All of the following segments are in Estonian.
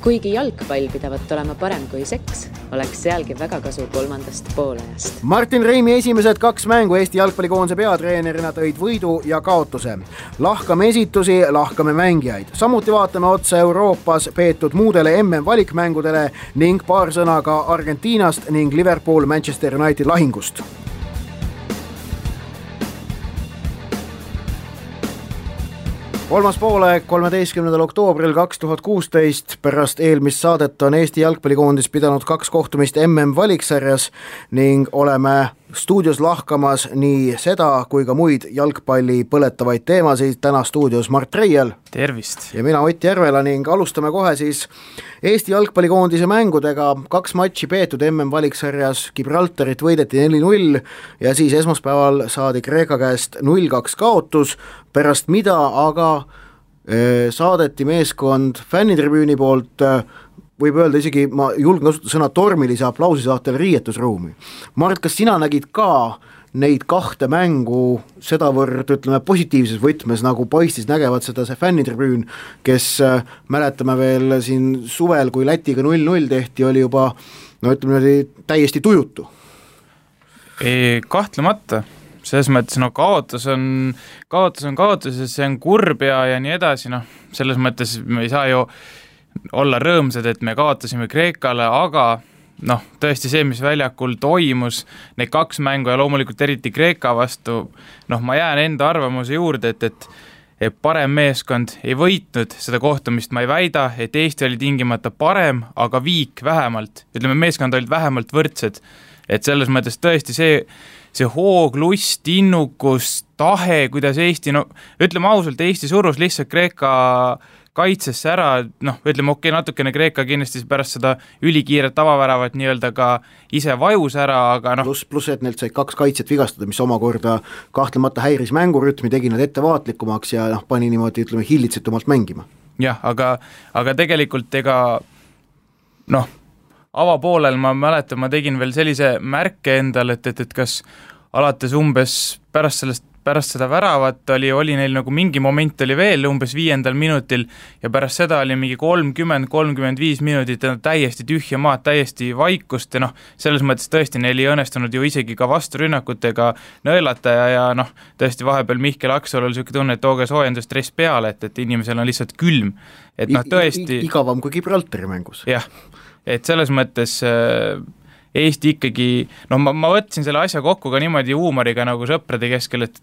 Kuigi jalgpall pidavat olema parem kui seks, oleks sealgi väga kasu kolmandast poolajast. Martin Reimi esimesed 2 mängu Eesti jalgpallikoondise peatreenerina tõid võidu ja kaotuse. Lahkame esitusi, lahkame mängijaid. Samuti vaatame otsa Euroopas peetud muudele MM-valikmängudele ning paar sõna ka Argentiinast ning Liverpool-Manchester United lahingust. Kolmas poolaeg 13. oktoobril 2016 pärast eelmist saadet on Eesti jalgpallikoondis pidanud 2 kohtumist MM-valiksarjas ning oleme stuudios lahkamas nii seda kui ka muid jalgpalli põletavaid teemasid. Täna stuudios Mart Reiel. Tervist! Ja mina Ott Järvela ning alustame kohe siis Eesti jalgpallikoondise mängudega. 2 matši peetud MM-valiksarjas, Gibraltarit võideti 4-0 ja siis esmaspäeval saadi Kreeka käest 0-2 kaotus, pärast mida aga saadeti meeskond fännitribüüni poolt, võib öelda isegi, ma julgen kasutada sõna tormilise aplausi saatel riietusruumi. Mart, kas sina nägid ka neid 2 mängu sedavõrd, ütleme, positiivses võtmes, nagu paistis nägevad seda see fännitribüün, kes mäletame veel siin suvel, kui Lätiga 0-0 tehti, oli juba, no ütleme, täiesti tujutu? Kahtlemata. Selles mõttes, kaotus on kaotus ja see on kurb ja nii edasi, selles mõttes me ei saa ju olla rõõmsad, et me kaotasime Kreekale, aga tõesti see, mis väljakul toimus, need 2 mängu ja loomulikult eriti Kreeka vastu, ma jään enda arvamuse juurde, et parem meeskond ei võitnud seda kohtumist, ma ei väida, et Eesti oli tingimata parem, aga viik vähemalt, ütleme, meeskond olid vähemalt võrdsed, et selles mõttes tõesti see hoog, lust, innukus, tahe, kuidas Eesti, ütleme ausalt, Eesti surus lihtsalt Kreeka kaitsesse ära, ütleme natukene Kreeka kindlasti pärast seda ülikiiret tavaväravat nii-öelda ka ise vajus ära, aga Plus, et neilt sai 2 kaitset vigastada, mis omakorda kahtlemata häiris mängurütmi, tegi nad ettevaatlikumaks ja pani niimoodi, ütleme, hillitsetumalt mängima. Jah, aga tegelikult avapoolel ma mäletan, ma tegin veel sellise märke endal, et kas alates umbes pärast seda väravat oli neil nagu mingi moment oli veel umbes 5. minutil ja pärast seda oli mingi 30-35 minutit täiesti tühja maad, täiesti vaikust ja selles mõttes tõesti neil ei õnnestunud ju isegi ka vasturünnakutega nõelata ja tõesti vahepeal Mihkel Aksalul oli selline tunne, et tooge soojendusstress peale, et inimesel on lihtsalt külm. Et tõesti igavam kui Gibraltari mängus. Jah, et selles mõttes Eesti ikkagi, ma võtsin selle asja kokku ka niimoodi huumoriga nagu sõprade keskel, et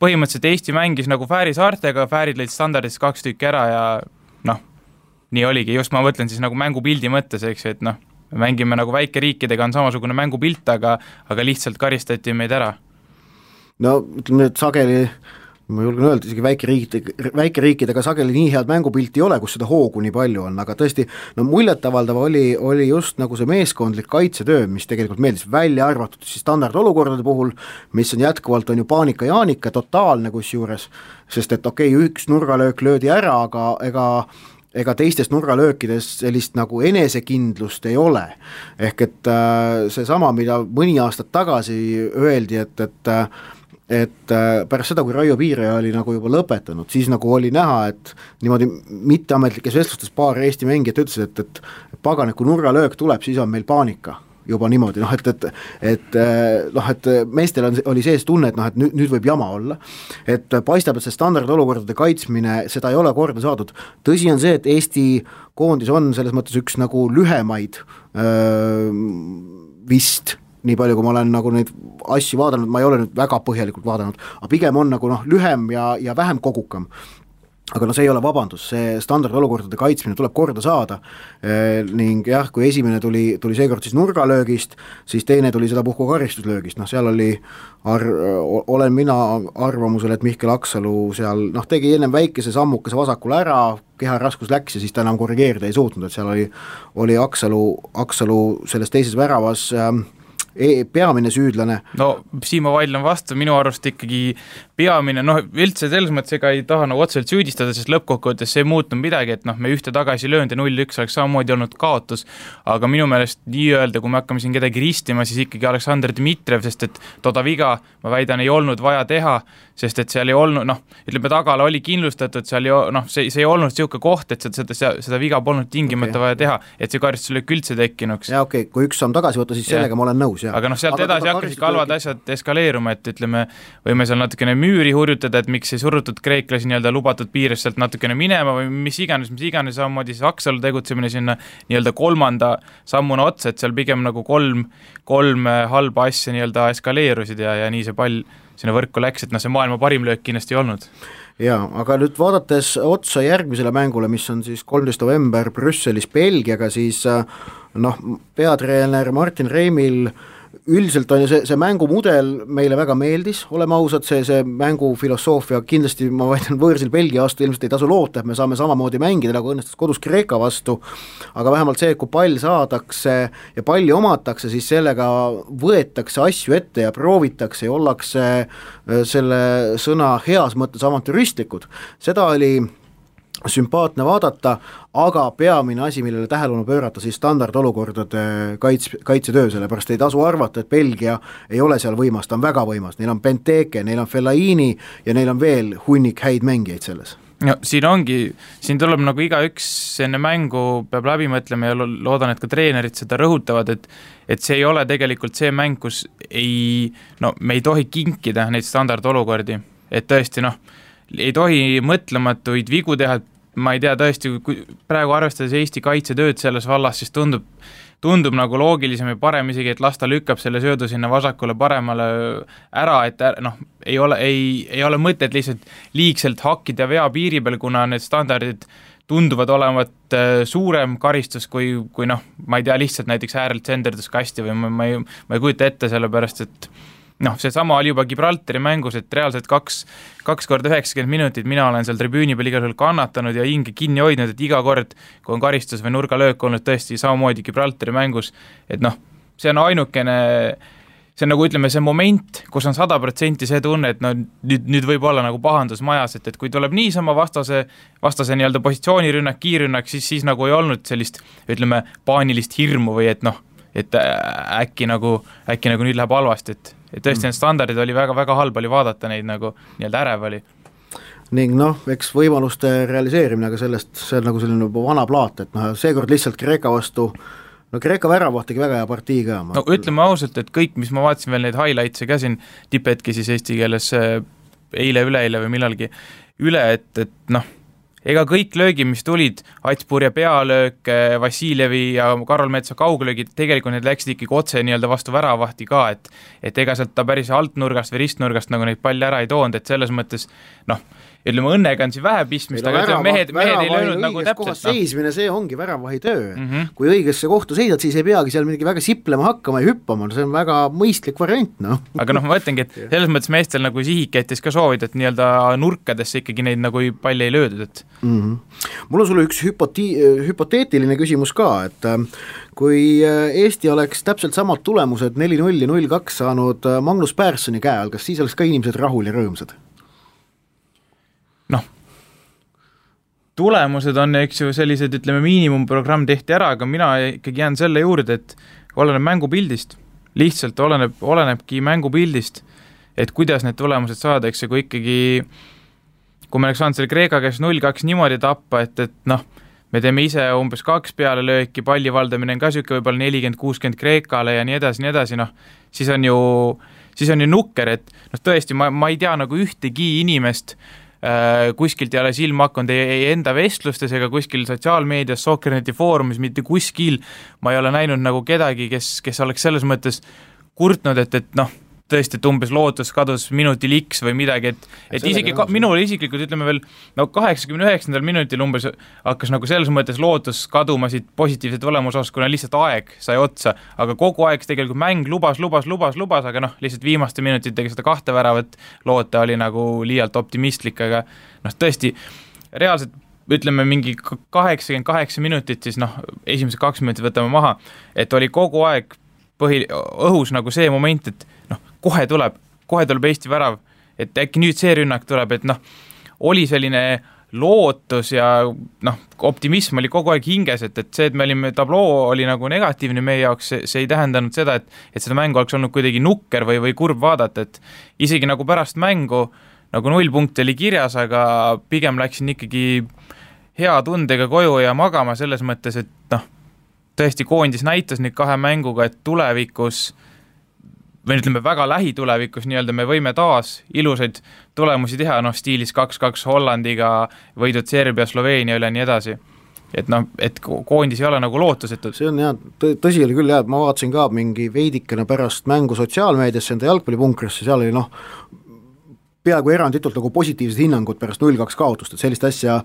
põhimõtteliselt Eesti mängis nagu Fääri saartega, Fäärid lõid standardist 2 tükki ära ja nii oligi, just ma mõtlen siis nagu mängupildi mõttes, eks, et mängime nagu väikeriikidega on samasugune mängupilt, aga lihtsalt karistati meid ära. Ütleme, et sageli ma julgen öelda, isegi väikeriikidega sageli nii head mängupilti ei ole, kus seda hoogu nii palju on, aga tõesti, muljetavaldav oli just nagu see meeskondlik kaitsetöö, mis tegelikult meeldis välja arvatud siis standardolukordade puhul, mis on jätkuvalt on ju paanika jaanika, totaalne kusjuures, sest et üks nurgalöök löödi ära, aga ega teistest nurgalöökides sellist nagu enesekindlust ei ole. Ehk et see sama, mida mõni aastat tagasi öeldi, et pärast seda, kui Raio Piiraja oli nagu juba lõpetanud, siis nagu oli näha, et niimoodi mitteametlikes vestlustes paar Eesti mängijat ütlesid, et pagan, kui nurgalöök tuleb, siis on meil paanika juba niimoodi, et meestel oli sees tunne, et nüüd võib jama olla, et paistab, et see standardolukordade kaitsmine, seda ei ole korda saadud. Tõsi on see, et Eesti koondis on selles mõttes üks nagu lühemaid vist, nii palju, kui ma olen nagu neid asju vaadanud, ma ei ole nüüd väga põhjalikult vaadanud, aga pigem on nagu lühem ja vähem kogukam. Aga see ei ole vabandus, see standardolukordade kaitsmine tuleb korda saada ning jah, kui esimene tuli seekord siis nurgalöögist, siis teine tuli seda puhku karistuslöögist, seal oli olen mina arvamusel, et Mihkel Aksalu seal tegi ennem väikese sammukese vasakule ära, keha raskus läks ja siis ta enam korrigeerida ei suutnud, et seal oli Aksalu selles teises väravas peamine süüdlane. Siin ma vaidlen vastu, minu arust ikkagi peamine, üldse selles mõttes ega ei taha nagu otseselt süüdistada, sest lõppkokkuvõttes see ei muutnud midagi, et me ühte tagasi löönud ja 0-1 oleks samamoodi olnud kaotus, aga minu meelest nii-öelda, kui me hakkame siin kedagi ristima, siis ikkagi Aleksandr Dmitrijev, sest et toda viga, ma väidan, ei olnud vaja teha, sest et seal ei olnud, ütleme tagala oli kindlustatud, seal see ei olnud siuke koht, et seda viga polnud tingimata vaja teha, et see karistus oli üldse tekkinuks. Ja kui üks samm tagasi võtta, siis sellega ma olen nõus. Ja. Aga sealt edasi hakkasid halvad asjad eskaleeruma, et ütleme, võime seal natukene müüri hurjutada, et miks ei surutud kreeklasi nii-öelda lubatud piires sealt natukene minema või mis iganes, samamoodi siis Aksalu tegutsemine sinna nii-öelda kolmanda sammuna otsa, et seal pigem nagu kolm halba asja nii-öelda eskaleerusid ja nii see pall sinna võrku läks, et see maailma parim löök kindlasti ei olnud. Jaa, aga nüüd vaadates otsa järgmisele mängule, mis on siis 13. november Brüsselis Belgiaga, siis peatreener Martin Reimil üldiselt on ju see mängumudel meile väga meeldis, oleme ausad, see mängufilosoofia kindlasti, ma väidan, võõrsil Belgia vastu ilmselt ei tasu loota, et me saame samamoodi mängida, nagu õnnestus kodus Kreeka vastu, aga vähemalt see, kui pall saadakse ja palli omatakse, siis sellega võetakse asju ette ja proovitakse ja ollakse selle sõna heas mõttes avantüristlikud. Seda oli sümpaatne vaadata, aga peamine asi, millele tähelepanu pöörata, siis standardolukordade kaitsetöö, sellepärast ei tasu arvata, et Belgia ei ole seal võimas, ta on väga võimas, neil on Benteke, neil on Fellaini ja neil on veel hunnik häid mängijaid selles. No, siin tuleb nagu igaüks enne mängu peab läbi mõtlema ja loodan, et ka treenerid seda rõhutavad, et see ei ole tegelikult see mäng, kus me ei tohi kinkida neid standardolukordi, et tõesti ei tohi mõtlematuid vigu teha, ma ei tea tõesti, praegu arvestades Eesti kaitsetööd selles vallas, siis tundub nagu loogilisem ja parem isegi, et lasta lükkab selle söödu sinna vasakule paremale ära, et ei ole mõtet lihtsalt liigselt hakkida vea piiri peal, kuna need standardid tunduvad olevat suurem karistus kui ma ei tea, lihtsalt näiteks äärelt senderdus kasti või ma ei kujuta ette, sellepärast et see sama oli juba Gibraltari mängus, et reaalselt 2 korda 90 minutit mina olen seal tribüüni peal igal juhul kannatanud ja hinge kinni hoidnud, et iga kord, kui on karistus või nurgalöök olnud tõesti samamoodi Gibraltari mängus, et see on ainukene, see on nagu ütleme see moment, kus on 100% see tunne, et nüüd võib olla nagu pahandus majas, et kui tuleb niisama vastase nii-öelda positsioonirünnak, kiirrünnak, siis nagu ei olnud sellist, ütleme, paanilist hirmu või et äkki nagu nüüd läheb halvasti, et tõesti need standardid oli väga-väga halb oli vaadata neid nagu nii-öelda ärev oli. Ning eks võimaluste realiseerimine, aga see on nagu selline vana plaat, et seekord lihtsalt Kreeka vastu, Kreeka väravaht tegi väga hea partii ka. Ütleme ausalt, et kõik, mis ma vaatasin veel neid highlights'e ka siin tipetki siis eesti keeles üleeile või millalgi üle, et ega kõik löögid, mis tulid, Atspurja pealöök, Vassiljevi ja Karol Metsa kauglöögid, tegelikult need läksid ikkagi otse nii-öelda vastu väravahti ka, et ega sealt ta päris altnurgast või ristnurgast nagu neid palli ära ei toonud, et selles mõttes ütleme, õnnega on siin vähe pistmist, aga ütleme, mehed ei löönud nagu täpselt. Seismine, see ongi väravahi töö. Kui õigesse kohta seisad, siis ei peagi seal midagi väga siplema hakkama ja hüppama, see on väga mõistlik variant. Aga ma mõtlengi, et selles mõttes meestel nagu sihiketis ka soovid, et nii-öelda nurkadesse ikkagi neid nagu palli ei löödud, et Mul on sulle üks hüpoteetiline küsimus ka, et kui Eesti oleks täpselt samad tulemused 4-0 ja 0-2 saanud Magnus Pärssoni käe all, kas siis oleks ka inimesed rahul ja rõõmsad? Tulemused on, eks ju, sellised, ütleme, miinimumprogramm tehti ära, aga mina ikkagi jään selle juurde, et oleneb mängupildist, lihtsalt olenebki mängupildist, et kuidas need tulemused saada, eks see, kui ikkagi kui me oleks saanud selle Kreeka käes 0-2 niimoodi tappa, et me teeme ise umbes 2 peale lööki, palli valdamine on ka süke võib-olla 40-60 Kreekale ja nii edasi, siis on ju nukker, et tõesti, ma ei tea nagu ühtegi inimest kuskilt ei ole silma hakanud ei enda vestlustes ega kuskil sotsiaalmeedias, Sokkerneti foorumis, mitte kuskil ma ei ole näinud nagu kedagi, kes oleks selles mõttes kurtnud, et tõesti, et umbes lootus kadus minutil X või midagi, et isegi minul isiklikult ütleme veel 89. minutil umbes hakkas nagu selles mõttes lootus kaduma siit positiivse tulemuse osas, kuna lihtsalt aeg sai otsa, aga kogu aeg tegelikult mäng lubas, aga lihtsalt viimaste minutitega seda 2 väravat loota oli nagu liialt optimistlik, aga tõesti, reaalselt ütleme mingi 88 minutit, siis esimesed 2 minutit võtame maha, et oli kogu aeg õhus nagu see moment, et kohe tuleb Eesti värav, et äkki nüüd see rünnak tuleb, et noh, oli selline lootus ja noh, optimism oli kogu aeg hinges, et see, et me olime, tabloo oli nagu negatiivne meie jaoks, see ei tähendanud seda, et seda mängu oleks olnud kuidagi nukker või kurb vaadata, et isegi nagu pärast mängu nagu 0 punkti oli kirjas, aga pigem läksin ikkagi hea tundega koju ja magama selles mõttes, et noh, tõesti koondis näitas nüüd 2 mänguga, et tulevikus või ütleme väga lähitulevikus nii-öelda me võime taas ilusaid tulemusi teha, noh stiilis 2-2 Hollandiga, võidud Serbia, Sloveenia üle nii edasi. Et noh, et koondis ei ole nagu lootusetud. See on jah, tõsi oli küll jah, ma vaatasin ka mingi veidikene pärast mängu sotsiaalmeediasse enda jalgpallipunkrisse, seal oli noh, peaaegu eranditult nagu positiivsed hinnangud pärast 0-2 kaotust, et sellist asja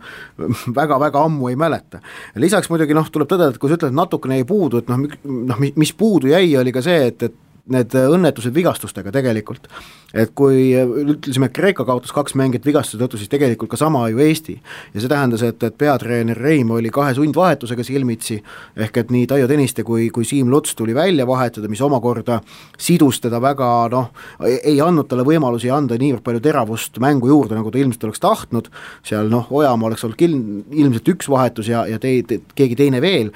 väga-väga ammu ei mäleta. Lisaks muidugi noh, tuleb tõdeda, et kui sa ütled, et natukene ei puudu, et noh, mis puudu jäi, oli ka see, et need õnnetused vigastustega tegelikult, et kui ütlesime, et Kreeka kaotas 2 mängijat vigastuse tõttu, siis tegelikult ka sama ju Eesti ja see tähendas, et peatreener Reim oli 2 sundvahetusega silmitsi, ehk et nii Taio Tõniste kui Siim Luts tuli välja vahetada, mis omakorda sidus teda väga, noh, ei andnud talle võimalusi anda niivõrd palju teravust mängu juurde, nagu ta ilmselt oleks tahtnud, seal noh, Ojamaa oleks olnud ilmselt 1 vahetus ja keegi teine veel,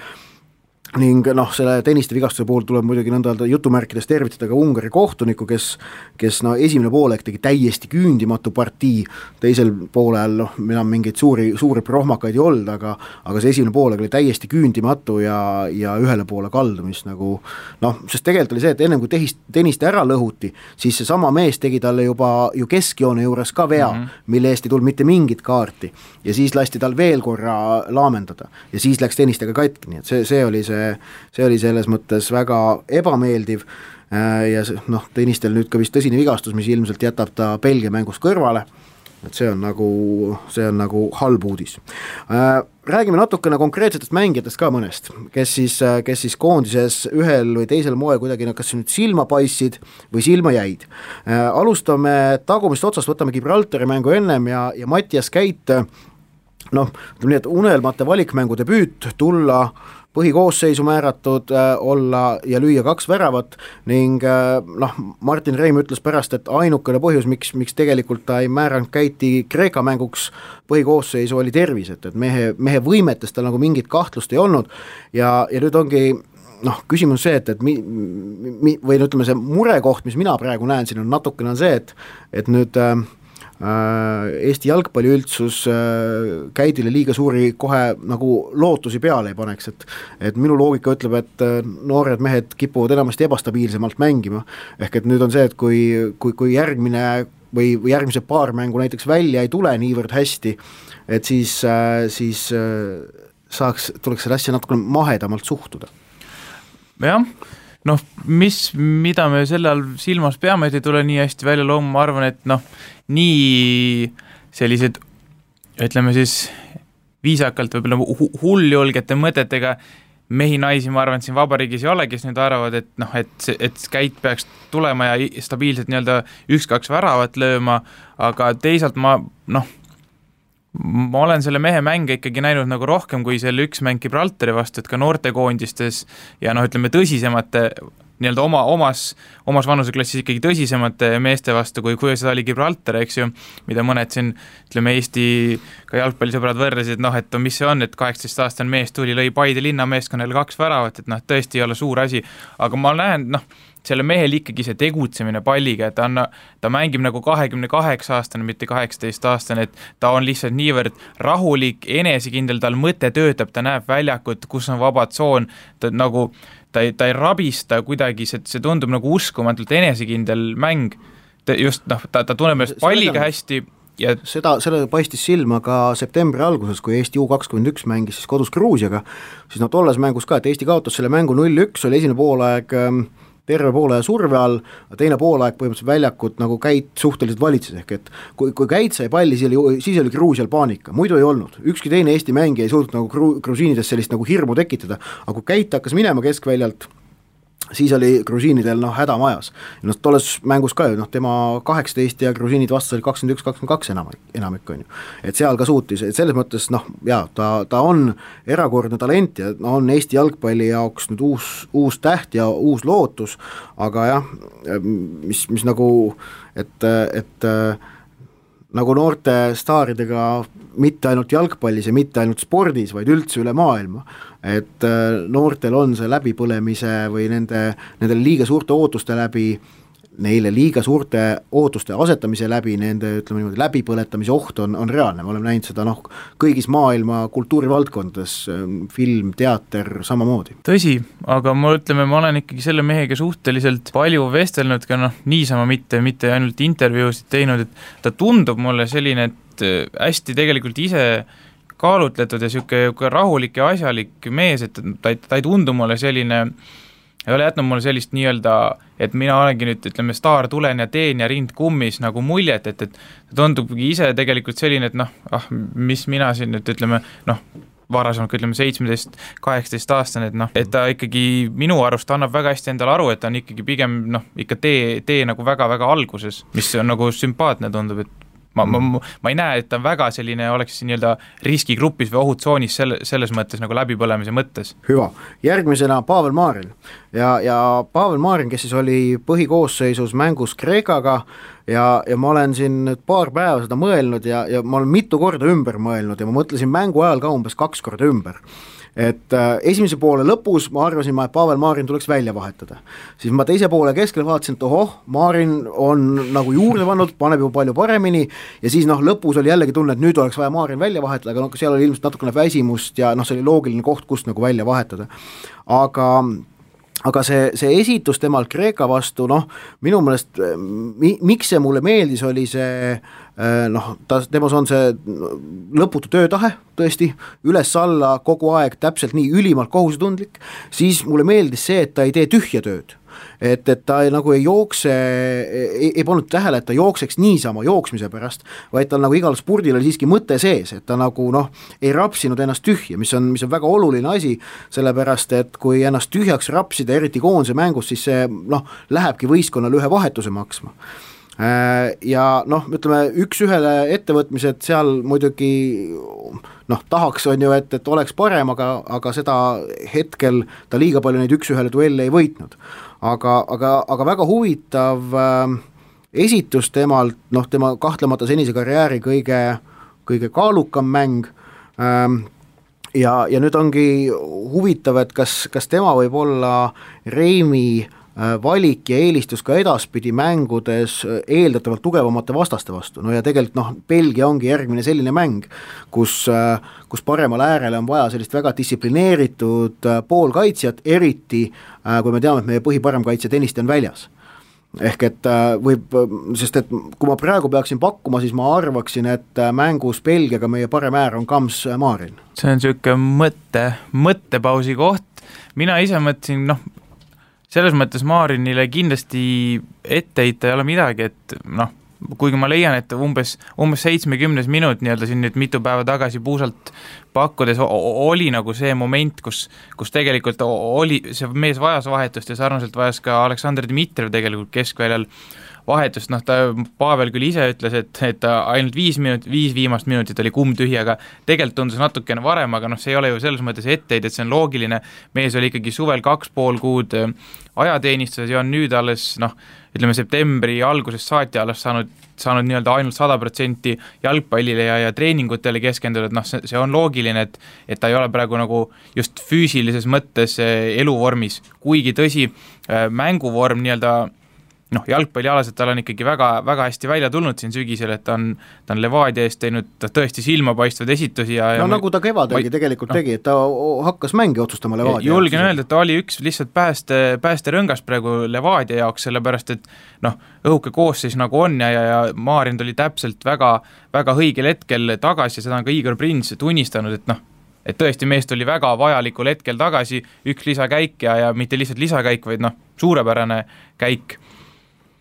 ning noh, selle Tõniste vigastuse puhul tuleb muidugi nõnda jutumärkides tervitada ka Ungari kohtuniku, kes no esimene poolek tegi täiesti küündimatu partii, teisel poolel noh, enam mingeid suuri prohmakaid ei olnud, aga see esimene poolek oli täiesti küündimatu ja ühele poole kaldumist nagu noh, sest tegelikult oli see, et ennem kui Tõniste ära lõhuti, siis see sama mees tegi talle juba ju keskjoone juures ka vea, mille eest ei tulnud mitte mingit kaarti ja siis lasti tal veel korra laamendada ja siis läks Tõnistega katki, nii et see oli selles mõttes väga ebameeldiv ja noh, Tõnistel nüüd ka vist tõsine vigastus, mis ilmselt jätab ta Belgia mängust kõrvale, et see on nagu halb uudis. Räägime natukene konkreetsetest mängijatest ka mõnest, kes siis koondises ühel või teisel moel kuidagi kas nüüd silma paistsid või silma jäid. Alustame tagumist otsast, võtame Gibraltari mängu ennem ja Mattias Käit, noh, ütleme nii, et unelmate valikmängu debüüt, tulla põhikoosseisu määratud, olla ja lüüa 2 väravat ning noh, Martin Reim ütles pärast, et ainukene põhjus, miks tegelikult ta ei määranud Käiti Kreeka mänguks põhikoosseisu oli tervis, et mehe võimetes tal nagu mingit kahtlust ei olnud ja nüüd ongi noh, küsimus see, et või ütleme see murekoht, mis mina praegu näen siin on natukene on see, et nüüd Eesti jalgpalliüldsus Käidile liiga suuri kohe nagu lootusi peale ei paneks, et minu loogika ütleb, et noored mehed kipuvad enamasti ebastabiilsemalt mängima, ehk et nüüd on see, et kui järgmine või järgmise paar mängu näiteks välja ei tule niivõrd hästi, et siis tuleks selle asja natuke mahedamalt suhtuda. Jah, noh, mida me selle all silmas peame, et ei tule nii hästi välja looma, ma arvan, et noh, nii sellised, ütleme siis viisakalt võib-olla hulljulgete mõtetega mehi-naisi, ma arvan, et siin vabariigis ei ole, kes nüüd arvavad, et noh, et Käit peaks tulema ja stabiilselt nii-öelda 1-2 väravat lööma, aga teisalt ma olen selle mehe mänge ikkagi näinud nagu rohkem kui selle 1 mäng Gibraltari vastu, et ka noortekoondistes ja noh, ütleme tõsisemate nii-öelda omas vanuseklassis ikkagi tõsisemate meeste vastu, kui seda oli Gibraltar, eks ju, mida mõned siin, ütleme, Eesti ka jalgpallisõbrad võrresid, noh, et mis see on, et 18-aastane mees tuli, lõi Paide linnameeskonnale 2 väravat, et noh, tõesti ei ole suur asi, aga ma näen, noh, selle mehel ikkagi see tegutsemine palliga, et ta mängib nagu 28-aastane, mitte 18-aastane, et ta on lihtsalt niivõrd rahulik, enesekindel, tal mõte töötab, ta näeb väljakut, kus on vaba tsoon, ta ei rabista kuidagi, see tundub nagu uskumatult enesekindel mäng, just noh, ta tunneb ennast palliga hästi ja selle paistis silma ka septembri alguses, kui Eesti U21 mängis siis kodus Gruusiaga, siis tolles mängus ka, et Eesti kaotas selle mängu 0-1, oli esimene poolaeg terve poole surve all, teine poolaeg põhimõtteliselt väljakut nagu Käit suhteliselt valitses, ehk et kui Käit sai palli, siis oli Gruusial paanika, muidu ei olnud, ükski teine Eesti mängija ei suutnud nagu grusiinides sellist nagu hirmu tekitada, aga kui Käit hakkas minema keskväljalt siis oli grusiinidel häda majas. Tolles mängus ka ju, tema 18 ja grusiinid vastas oli 21-22 enamik on ju. Et seal ka suutis, et selles mõttes ta on erakordne talent ja on Eesti jalgpalli jaoks nüüd uus täht ja uus lootus, aga jah, mis nagu, et nagu noorte staaridega mitte ainult jalgpallis ja mitte ainult spordis, vaid üldse üle maailma, et noortel on see läbipõlemise või nendele liiga suurte ootuste läbi, neile liiga suurte ootuste asetamise läbi, nende ütleme niimoodi läbipõletamise oht on reaalne, me oleme näinud seda kõigis maailma kultuurivaldkondades, film, teater, samamoodi. Tõsi, aga ma olen ikkagi selle mehega suhteliselt palju vestelnud ka niisama mitte ainult intervjuusid teinud, et ta tundub mulle selline, et hästi tegelikult ise kaalutletud ja siuke rahulik ja asjalik mees, et ta ei tundu mulle selline, ei ole jätnud mulle sellist nii-öelda, et mina olengi nüüd, ütleme, staar, tulen ja teen ja rind kummis nagu muljet, et ta tundubki ise tegelikult selline, et mis mina siin nüüd, ütleme, varasemalt, ütleme 17-18 aastane, et ta ikkagi minu arust annab väga hästi endale aru, et ta on ikkagi pigem ikka tee nagu väga-väga alguses, mis on nagu sümpaatne tundub, et ma ei näe, et ta väga selline oleks nii-öelda riskigrupis või ohutsoonis selles mõttes nagu läbipõlemise mõttes. Hüva, järgmisena Pavel Marin ja Pavel Marin, kes siis oli põhikoosseisus mängus Kreekaga ja ma olen siin nüüd paar päeva seda mõelnud ja ma olen mitu korda ümber mõelnud ja ma mõtlesin mängu ajal ka umbes 2 korda ümber. Et esimese poole lõpus ma arvasin, et Pavel Marin tuleks välja vahetada. Siis ma teise poole keskel vaatasin, et Marin on nagu juurde pannud, paneb ju palju paremini ja siis lõpus oli jällegi tunne, et nüüd oleks vaja Marin välja vahetada, aga seal oli ilmselt natukene väsimust ja see oli loogiline koht, kust nagu välja vahetada. Aga see esitus temal Kreeka vastu, minu meelest, miks see mulle meeldis, oli see, temas on see lõputu töötahe, tõesti, üles-alla kogu aeg täpselt nii ülimalt kohusetundlik, siis mulle meeldis see, et ta ei tee tühja tööd. Et ta nagu ei jookse, ei pannud tähele, et ta jookseks niisama jooksmise pärast, vaid tal nagu igal spurdil oli siiski mõte sees, et ta nagu ei rapsinud ennast tühja, mis on väga oluline asi, sellepärast et kui ennast tühjaks rapsida, eriti koondise mängus, siis see lähebki võistkonnale ühe vahetuse maksma. Ja ütleme, üks-ühele ettevõtmised seal muidugi tahaks on ju, et oleks parem, aga seda hetkel ta liiga palju neid üks-ühele duelle ei võitnud. Aga väga huvitav esitus temalt, tema kahtlemata senise karjääri kõige kaalukam mäng ja nüüd ongi huvitav, et kas tema võib olla Reimi valik ja eelistus ka edaspidi mängudes eeldatavalt tugevamate vastaste vastu, ja tegelikult Belgia ongi järgmine selline mäng, kus paremal äärele on vaja sellist väga distsiplineeritud poolkaitsjat, eriti kui me teame, et meie põhiparem kaitsja Tõniste on väljas. Ehk et sest et kui ma praegu peaksin pakkuma, siis ma arvaksin, et mängus Belgiaga meie parem äär on Kams Marin. See on siuke mõttepausi koht, mina ise mõtlesin, selles mõttes Marinile kindlasti etteheita ei ole midagi, et kuigi ma leian, et umbes 70 minut nii-öelda siin nüüd mitu päeva tagasi puusalt pakkudes oli nagu see moment, kus tegelikult oli, see mees vajas vahetust ja sarnaselt vajas ka Aleksandr Dmitrijev tegelikult keskväljal vahetust, Pavel küll ise ütles, et ta ainult 5 viimast minutit oli kumm tühi, aga tegelikult tundus natukene varem, aga see ei ole ju selles mõttes etteid, et see on loogiline, mees oli ikkagi suvel 2,5 kuud ajateenistuses ja on nüüd alles, ütleme septembri algusest saati alles saanud nii-öelda ainult 100% jalgpallile ja treeningutele keskenduda, et see on loogiline, et ta ei ole praegu nagu just füüsilises mõttes eluvormis, kuigi tõsi, mänguvorm nii-öelda jalgpallialaselt tal on ikkagi väga, väga hästi välja tulnud siin sügisel, et ta on Levadia eest teinud tõesti silmapaistvad esitusi ja nagu ta kevadelgi tegelikult tegi, et ta hakkas mängi otsustama Levadia. Julgen öelda, et ta oli üks lihtsalt päästerõngas praegu Levadia jaoks, sellepärast et õhuke koosseis nagu on ja Marin tuli täpselt väga, väga õigel hetkel tagasi ja seda on ka Igor Prins tunnistanud, et tõesti mees tuli väga vajalikul hetkel tagasi, üks lisakäik ja mitte lihtsalt lisakäik, vaid suurepärane käik.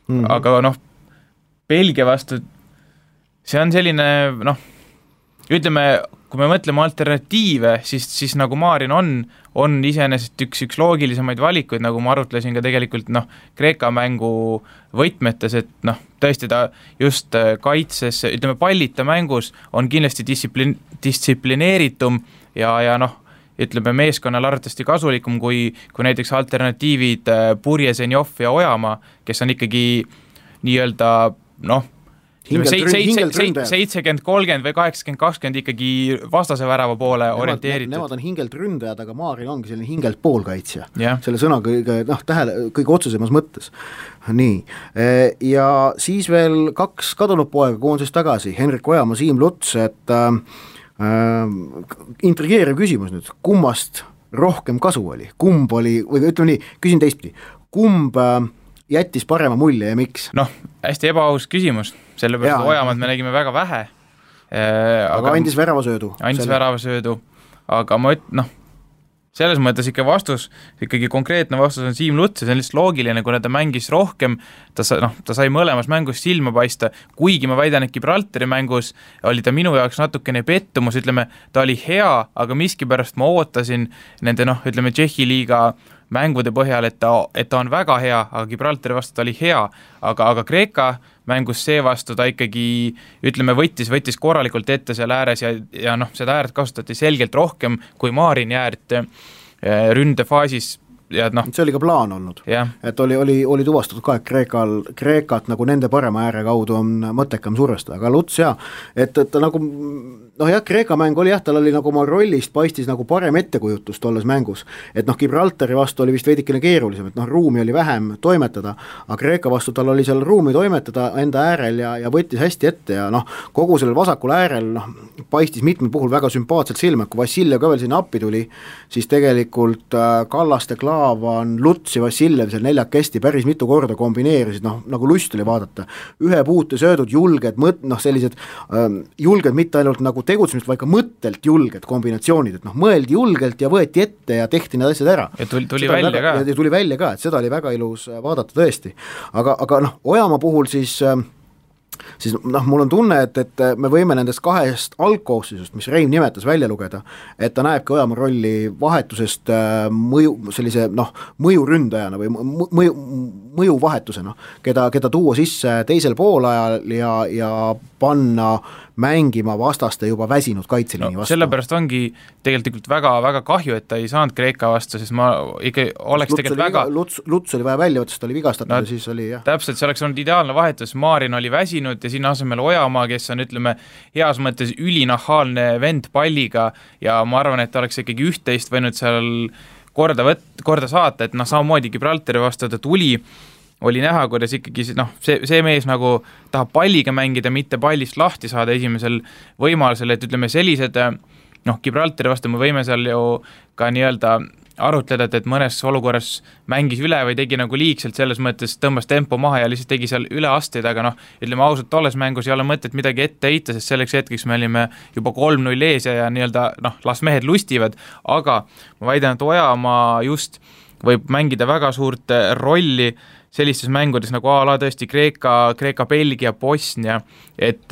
Aga Belgia vastu see on selline ütleme, kui me mõtleme alternatiive, siis nagu Marin on iseenesest üks loogilisemaid valikuid, nagu ma arutlesin ka tegelikult Kreeka mängu võtmetes, et tõesti ta just kaitses, ütleme pallita mängus on kindlasti distsiplineeritum ja ütleme meeskonnal arvatavasti kasulikum kui näiteks alternatiivid Purje, Zenjov ja Ojamaa, kes on ikkagi nii-öelda 70-30 või 80-20 ikkagi vastase värava poole orienteeritud. Nemad on hingelt ründajad, aga Maaril ongi selline hingelt poolkaitsja. Selle sõna kõige otsesemas mõttes. Nii. Ja siis veel 2 kadunud poega koonses tagasi, Henrik Ojamaa, Siim Luts, et intrigeeriv küsimus nüüd, kummast rohkem kasu oli? Kumb oli, või ütleme nii, küsin teistpidi, kumb jättis parema mulje ja miks? Hästi ebaaus küsimus, sellepärast Ojamaad me nägime väga vähe. Aga andis väravasöödu. Väravasöödu, aga selles mõttes ikkagi konkreetne vastus on Siim Luts ja see on lihtsalt loogiline, kuna ta mängis rohkem, ta sai mõlemas mängus silma paista, kuigi ma väidan, et Gibraltari mängus oli ta minu jaoks natukene pettumus, ütleme, ta oli hea, aga miskipärast ma ootasin nende, ütleme, Tšehhi liiga mängude põhjal, et ta on väga hea, aga Gibraltari vastu ta oli hea, aga Kreeka mängus seevastu ta ikkagi, ütleme, võttis korralikult ette seal ääres ja seda äärt kasutati selgelt rohkem kui Marin äärt ründefaasis. Ja see oli ka plaan olnud, et oli tuvastatud ka, et Kreekat nagu nende parema ääre kaudu on mõttekam survestada, aga Luts et nagu Kreeka mäng oli tal oli nagu oma rollist paistis nagu parem ettekujutus tolles mängus, et Gibraltari vastu oli vist veidikene keerulisem, et ruumi oli vähem toimetada, aga Kreeka vastu tal oli seal ruumi toimetada enda äärel ja võttis hästi ette ja kogu sellel vasakul äärel paistis mitmel puhul väga sümpaatselt silma, kui Vassiljev ka veel sinna appi tuli, siis tegelikult Kallaste, Klaavan, Luts ja Vassiljev seal neljakesti päris mitu korda kombineerisid, nagu lust oli vaadata, ühe puute söödud, julged, sellised julged mitte ainult nagu tegutsemist, vaid ka mõttelt julged kombinatsioonid, et mõeldi julgelt ja võeti ette ja tehti need asjad ära. Ja tuli välja ka, et seda oli väga ilus vaadata tõesti. Aga Ojamaa puhul siis mul on tunne, et me võime nendest 2 algkoosseisust, mis Reim nimetas, välja lugeda, et ta näebki Ojamaa rolli vahetusest sellise mõjuründajana või mõjuvahetusena, keda tuua sisse teisel poolajal ja panna mängima vastaste juba väsinud kaitseliini vastu. Sellepärast ongi tegelikult väga, väga kahju, et ta ei saanud Kreeka vastu, sest ma ikka oleks Luts oli vaja välja võtta, sest ta oli vigastatud ja siis oli Täpselt, see oleks olnud ideaalne vahetus, Marin oli väsinud ja sinna asemel Ojamaa, kes on, ütleme, heas mõttes ülinahaalne vend palliga ja ma arvan, et ta oleks ikkagi 11 võinud seal korda saata, et samamoodi Gibraltari vastu ta tuli, oli näha, kuidas ikkagi see mees nagu tahab palliga mängida, mitte pallist lahti saada esimesel võimalusel, et ütleme sellised, Gibraltari vastu me võime seal ju ka nii-öelda arutleda, et mõnes olukorras mängis üle või tegi nagu liigselt, selles mõttes tõmbas tempo maha ja lihtsalt tegi seal üleasteid, aga ütleme ausalt, tolles mängus ei ole mõtet midagi ette heita, sest selleks hetkeks me olime juba 3-0 ees ja nii-öelda las mehed lustivad, aga ma väidan, et Ojamaa just võib mängida väga suurt rolli sellistes mängudes nagu a-la tõesti Kreeka, Belgia, Bosnia, et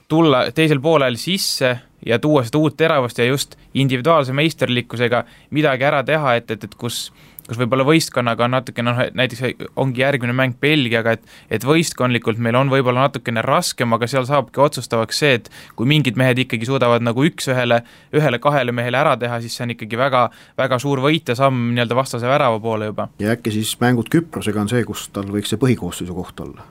tulla teisel poolel sisse ja tuua seda uut teravust ja just individuaalse meisterlikkusega midagi ära teha, et kus võib-olla võistkonnaga on natukene, näiteks ongi järgmine mäng Belgiaga, et võistkondlikult meil on võib-olla natukene raskem, aga seal saabki otsustavaks see, et kui mingid mehed ikkagi suudavad nagu ühele-kahele mehele ära teha, siis see on ikkagi väga, väga suur võit ja samm nii-öelda vastase värava poole juba. Ja äkki siis mängud Küprosega on see, kus tal võiks see põhikoosseisu koht olla?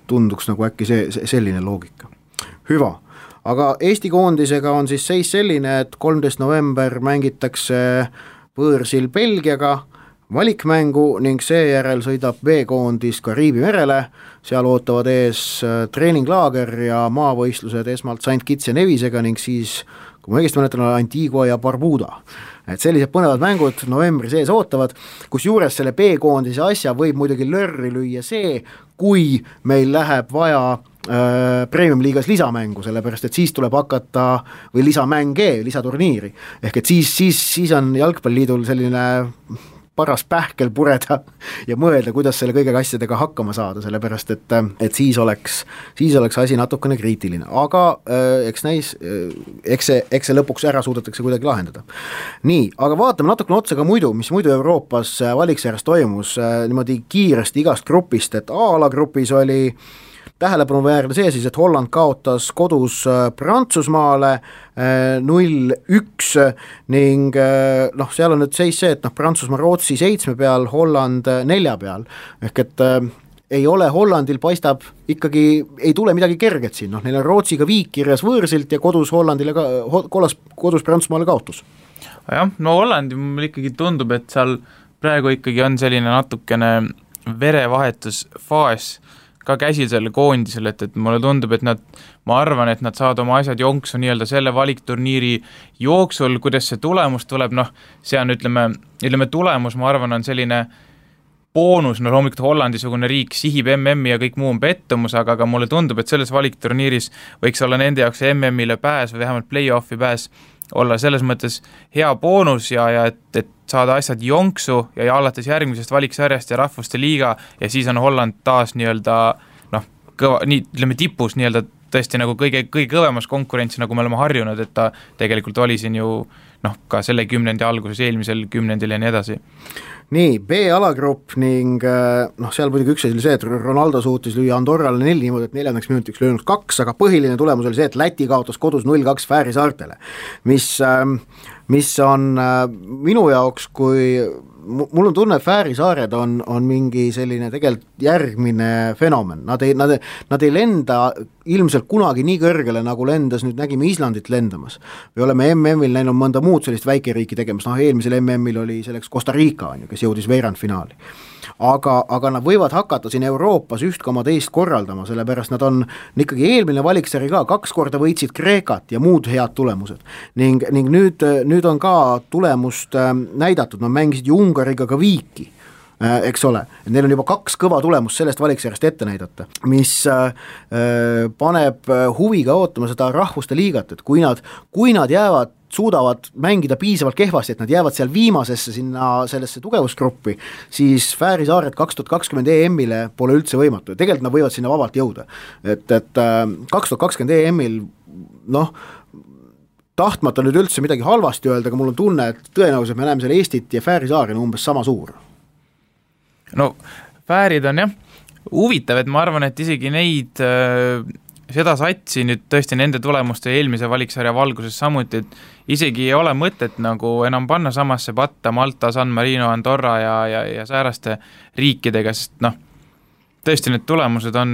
Tunduks nagu äkki selline loogika. Hüva, aga Eesti koondisega on siis seis selline, et 13. november mängitakse võõrsil Belgiaga valikmängu ning seejärel sõidab B-koondis Kariibi merele, seal ootavad ees treeninglaager ja maavõistlused esmalt St. Kitts ja Nevisega ning siis, kui ma õigesti mäletan, Antigua ja Barbuda. Et sellised põnevad mängud novembri sees ootavad, kus juures selle B-koondise asja võib muidugi lörri lüüa see, kui meil läheb vaja Premium-liigas lisamängu, sellepärast et siis tuleb hakata, või lisamänge, lisaturniiri, ehk et siis on Jalgpalliliidul selline paras pähkel pureda ja mõelda, kuidas selle kõige asjadega hakkama saada, sellepärast et siis oleks asi natukene kriitiline, aga eks näis, eks see lõpuks ära suudetakse kuidagi lahendada. Nii, aga vaatame natukene otsa ka mis muidu Euroopas valiksarjas toimus niimoodi kiiresti igast grupist, et A-alagrupis oli tähelepanuväärne see siis, et Holland kaotas kodus Prantsusmaale 0-1 ning seal on nüüd seis see, et Prantsusmaa Rootsi 7 peal, Holland 4 peal, ehk et ei ole Hollandil, paistab ikkagi, ei tule midagi kerget siin, neil on Rootsiga viik kirjas võõrsilt ja kodus Hollandile kodus Prantsusmaale kaotus. Jah, no Hollandi mul ikkagi tundub, et seal praegu ikkagi on selline natukene verevahetusfaas ka käsil selle koondisel, et mulle tundub, et ma arvan, et nad saavad oma asjad jonksu nii-öelda selle valikturniiri jooksul, kuidas see tulemus tuleb, see on ütleme tulemus, ma arvan, on selline boonus, loomulikult Hollandi-sugune riik sihib MM-i ja kõik muu on pettumus, aga mulle tundub, et selles valikturniiris võiks olla nende jaoks MM-ile pääs või vähemalt play-offi pääs olla selles mõttes hea boonus ja et saada asjad jonksu ja alates järgmisest valiksarjast ja rahvuste liiga ja siis on Holland taas nii-öelda tipus nii-öelda tõesti nagu kõige kõvemas konkurentsi, nagu me oleme harjunud, et ta tegelikult oli siin ju ka selle kümnendi alguses, eelmisel kümnendil ja nii edasi. Nii, B-alagrupp ning seal muidugi üks asi oli see, et Ronaldo suutis lüüa Andorrale 4 niimoodi, et 4. minutiks löönud 2, aga põhiline tulemus oli see, et Läti kaotas kodus 0-2 Fääri saartele, mis on minu jaoks, kui mul on tunne, et Fääri saared on mingi selline tegelikult järgmine fenomen, nad ei lenda ilmselt kunagi nii kõrgele, nagu lendas, nüüd nägime Islandit lendamas. Me oleme MM-il näinud mõnda muud sellist väikeriiki tegemas, eelmisel MM-il oli selleks Costa Rica, kes jõudis veerandfinaali. Aga nad võivad hakata siin Euroopas üht koma teist korraldama, sellepärast nad on ikkagi eelmine valiksari ka 2 korda võitsid Kreekat ja muud head tulemused. Ning nüüd on ka tulemust näidatud, nad mängisid ju Ungariga ka viiki, eks ole, neil on juba 2 kõva tulemust sellest valiksarjast ette näidata, mis paneb huviga ootama seda rahvuste liigat, et kui nad suudavad mängida piisavalt kehvasti, et nad jäävad seal viimasesse sinna sellesse tugevusgruppi, siis Fääri saared 2020 EM-ile pole üldse võimatu ja tegelikult nad võivad sinna vabalt jõuda, et 2020 EM-il tahtmata nüüd üldse midagi halvasti öelda, aga mul on tunne, et tõenäoliselt me näeme seal Eestit ja Fääri saarina umbes sama suur. No Fäärid on huvitav, et ma arvan, et isegi neid seda satsi nüüd tõesti nende tulemuste eelmise valiksarja valguses samuti, et isegi ei ole mõtet nagu enam panna samasse patta Malta, San Marino, Andorra ja sääraste riikidega, sest tõesti need tulemused on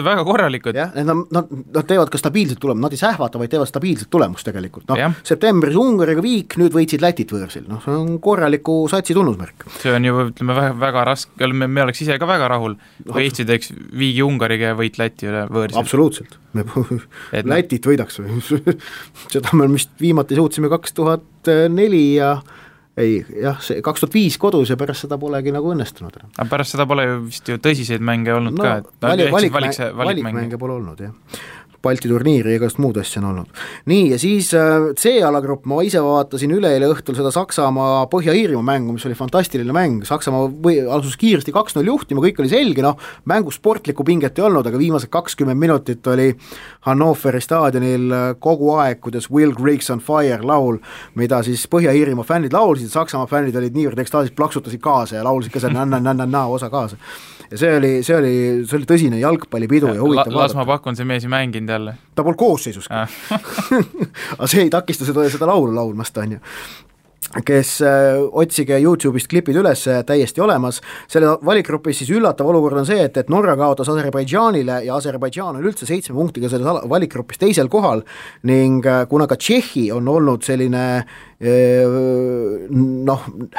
väga korralikud. Jah, nad teevad ka stabiilset tulemust, nad ei sähvata, vaid teevad stabiilset tulemust tegelikult. Septembris Ungariga viik, nüüd võitsid Lätit võõrsil. See on korraliku satsi tunnusmärk. See on ju, ütleme, väga raske, me oleks ise ka väga rahul, kui Eesti teeks viigi Ungariga ja võit Läti üle võõrsil. Absoluutselt. Lätit võidaks. Seda me vist viimati suutsime 2004 ja see 2005 kodus ja pärast seda polegi nagu õnnestunud. Aga pärast seda pole ju vist ju tõsiseid mänge olnud ka. Valikmänge pole olnud, jah. Balti turniiri ja igast muud asja on olnud. Nii, ja siis C-alagrupp, ma ise vaatasin üleeile õhtul seda Saksamaa Põhja-Iirimaa mängu, mis oli fantastiline mäng, Saksamaa alusus kiiresti 2-0 juhtima, kõik oli selge, mängu sportlikku pinget ei olnud, aga viimased 20 minutit oli Hannoveri staadionil kogu aeg, kuidas Will Griggs on Fire laul, mida siis Põhja-Iirimaa fännid laulsid, Saksamaa fännid olid niivõrd ekstaasis, plaksutasid kaasa ja laulsid ka see osa kaasa. Ja see oli tõsine jalgpallipidu ja huvitav vaadata. Las ma pakun, see mees ei mänginud jälle. Ta pole koosseisuski. Aga see ei takista seda laulu laulmast, on ju. Kes otsige YouTube'ist klipid üles, täiesti olemas. Selle valikgrupis siis üllatav olukord on see, et Norra kaotas Aserbaidžaanile ja Aserbaidžaan on üldse 7 punktiga selles valikgrupis teisel kohal ning kuna ka Tšehhi on olnud selline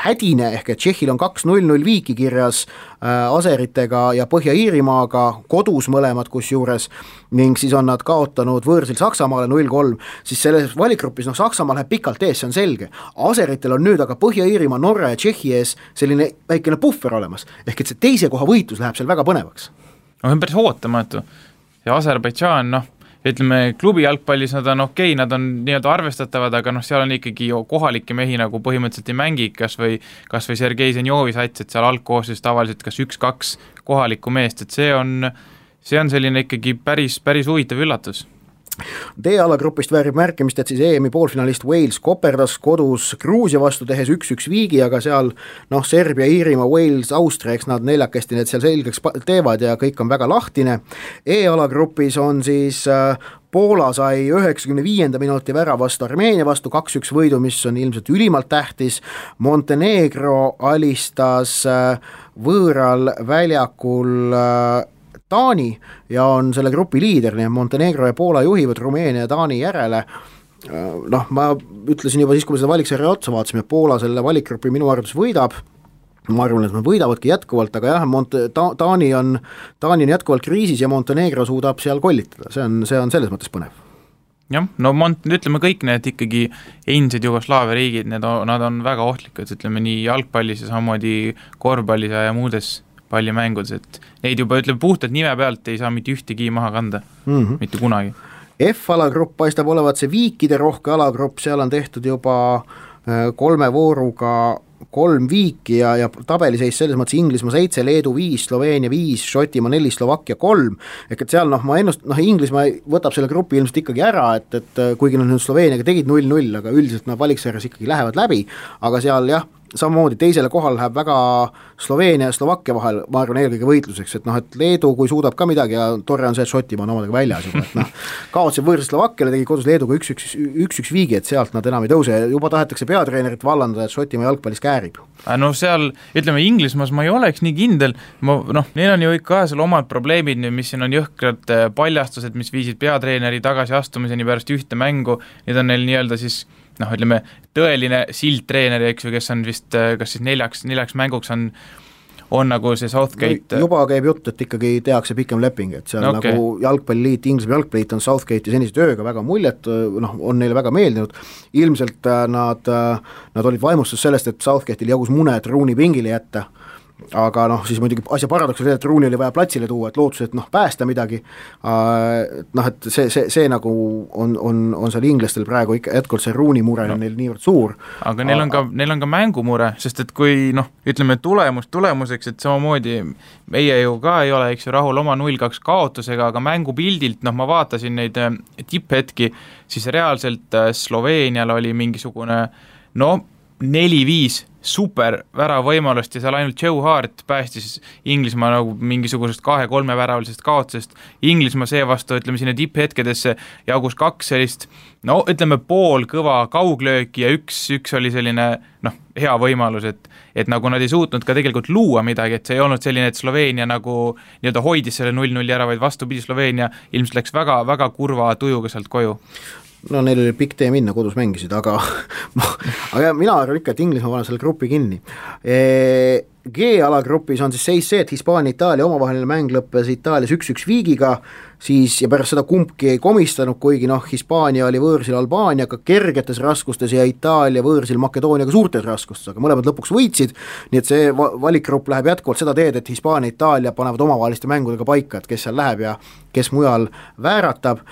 hädine, ehk et Tšehhil on 2-0 viiki kirjas Aseritega ja Põhja-Iirimaaga kodus mõlemad kusjuures ning siis on nad kaotanud võõrsil Saksamaale 0-3, siis selles valikgrupis Saksamaa läheb pikalt ees, see on selge. Aseritel on nüüd aga Põhja-Iirimaa, Norra ja Tšehhi ees selline väikene puffer olemas, ehk et see teise koha võitlus läheb seal väga põnevaks. On päris ootamatu ja Aserbaidžaan, ütleme, klubi jalgpallis nad on okei, nad on nii-öelda arvestatavad, aga seal on ikkagi kohalikke mehi nagu põhimõtteliselt ei mängi, kas või Sergei Zenjovi sats, et seal algkoosseisus tavaliselt kas 1-2 kohalikku meest, et see on selline ikkagi päris huvitav üllatus. D-alagrupist väärib märkimist, et siis EM-i poolfinalist Wales koperdas kodus Gruusia vastu tehes 1-1 viigi, aga seal Serbia, Iirimaa, Wales, Austria, eks nad neljakesti need seal selgeks teevad ja kõik on väga lahtine. E-alagrupis on siis Poola sai 95. minuti väravast Armeenia vastu 2-1 võidu, mis on ilmselt ülimalt tähtis. Montenegro alistas võõral väljakul Taani ja on selle grupi liider, nii Montenegro ja Poola juhivad Rumeenia ja Taani järele. Ma ütlesin juba siis, kui me seda valiksarja otsa vaatasime, et Poola selle valikgrupi minu arvates võidab, ma arvan, et nad võidavadki jätkuvalt, aga jah, Taani on jätkuvalt kriisis ja Montenegro suudab seal kollitada, see on selles mõttes põnev. Jah, ütleme kõik need ikkagi endised Jugoslaavia riigid, nad on väga ohtlikud, ütleme nii jalgpallis ja samamoodi korvpallis ja muudes pallimängudes, et neid juba puhtalt nime pealt ei saa mitte ühtegi maha kanda, mitte kunagi. F-alagrupp paistab olevat see viikide rohke alagrupp, seal on tehtud juba 3 vooruga 3 viiki ja tabeliseis selles mõttes Inglismaa 7, Leedu 5, Sloveenia 5, Šotimaa 4, Slovakkia 3, ehk et seal ma Inglismaa võtab selle grupi ilmselt ikkagi ära, et kuigi nad nüüd Sloveeniaga tegid 0-0, aga üldiselt nad valiksarjas ikkagi lähevad läbi, aga seal jah, samamoodi teisele kohal läheb väga Sloveenia ja Slovakkia vahel, ma arvan eelkõige võitluseks, et Leedu kui suudab ka midagi ja tore on see, et Šotimaa on omadega väljas juba, et kaotasid võõrsil Slovakkiale, tegi kodus Leeduga 1-1 viigi, et sealt nad enam ei tõuse ja juba tahetakse peatreenerit vallandada, et Šotimaa jalgpallis käärib. Seal, ütleme Inglismaas ma ei oleks nii kindel, neil on ju ikka seal omad probleemid, mis siin on jõhkrad paljastused, mis viisid peatreeneri tagasiastumiseni pärast ühte mängu, need on neil nii-öelda siis ütleme, tõeline sildtreener, eks ju, kes on vist, kas siis neljaks mänguks on nagu see Southgate. Juba käib jutt, et ikkagi tehakse pikem leping, et seal nagu jalgpalliliit, Inglismaa jalgpalliliit on Southgate'i senise tööga väga muljet, on neile väga meeldinud. Ilmselt nad olid vaimustus sellest, et Southgate'il jagus mune, et Rooney pingile jätta, aga siis muidugi asja paradoks oli, et Rooney oli vaja platsile tuua, et lootus, et päästa midagi, et see nagu on seal inglastel praegu ikka jätkuvalt see Rooney mure on neil niivõrd suur. Aga neil on ka mängumure, sest et kui ütleme tulemuseks, et samamoodi meie ju ka ei ole, eks ju, rahul oma 0-2 kaotusega, aga mängupildilt, ma vaatasin neid tipphetki, siis reaalselt Sloveenial oli mingisugune 4-5 super väravõimalust ja seal ainult Joe Hart päästis Inglismaa nagu mingisugusest 2-3 väravalisest kaotusest. Inglismaa seevastu, ütleme sinna tipphetkedesse jagus 2 sellist, ütleme pool kõva kauglööki ja üks oli selline hea võimalus, et nagu nad ei suutnud ka tegelikult luua midagi, et see ei olnud selline, et Sloveenia nagu nii-öelda hoidis selle 0-0 ära, vaid vastupidi, Sloveenia ilmselt läks väga, väga kurva tujuga sealt koju. Neil oli pikk tee minna, kodus mängisid, aga mina arvan ikka, et Inglismaa paneb selle grupi kinni. G-alagrupis on siis seis see, et Hispaania Itaalia omavaheline mäng lõppes Itaalias 1-1 viigiga, siis ja pärast seda kumbki ei komistanud, kuigi Hispaania oli võõrsil Albaaniaga kergetes raskustes ja Itaalia võõrsil Makedooniaga suurtes raskustes, aga mõlemad lõpuks võitsid, nii et see valikgrupp läheb jätkuvalt seda teed, et Hispaania ja Itaalia panevad omavaheliste mängudega paika, et kes seal läheb ja kes mujal vääratab,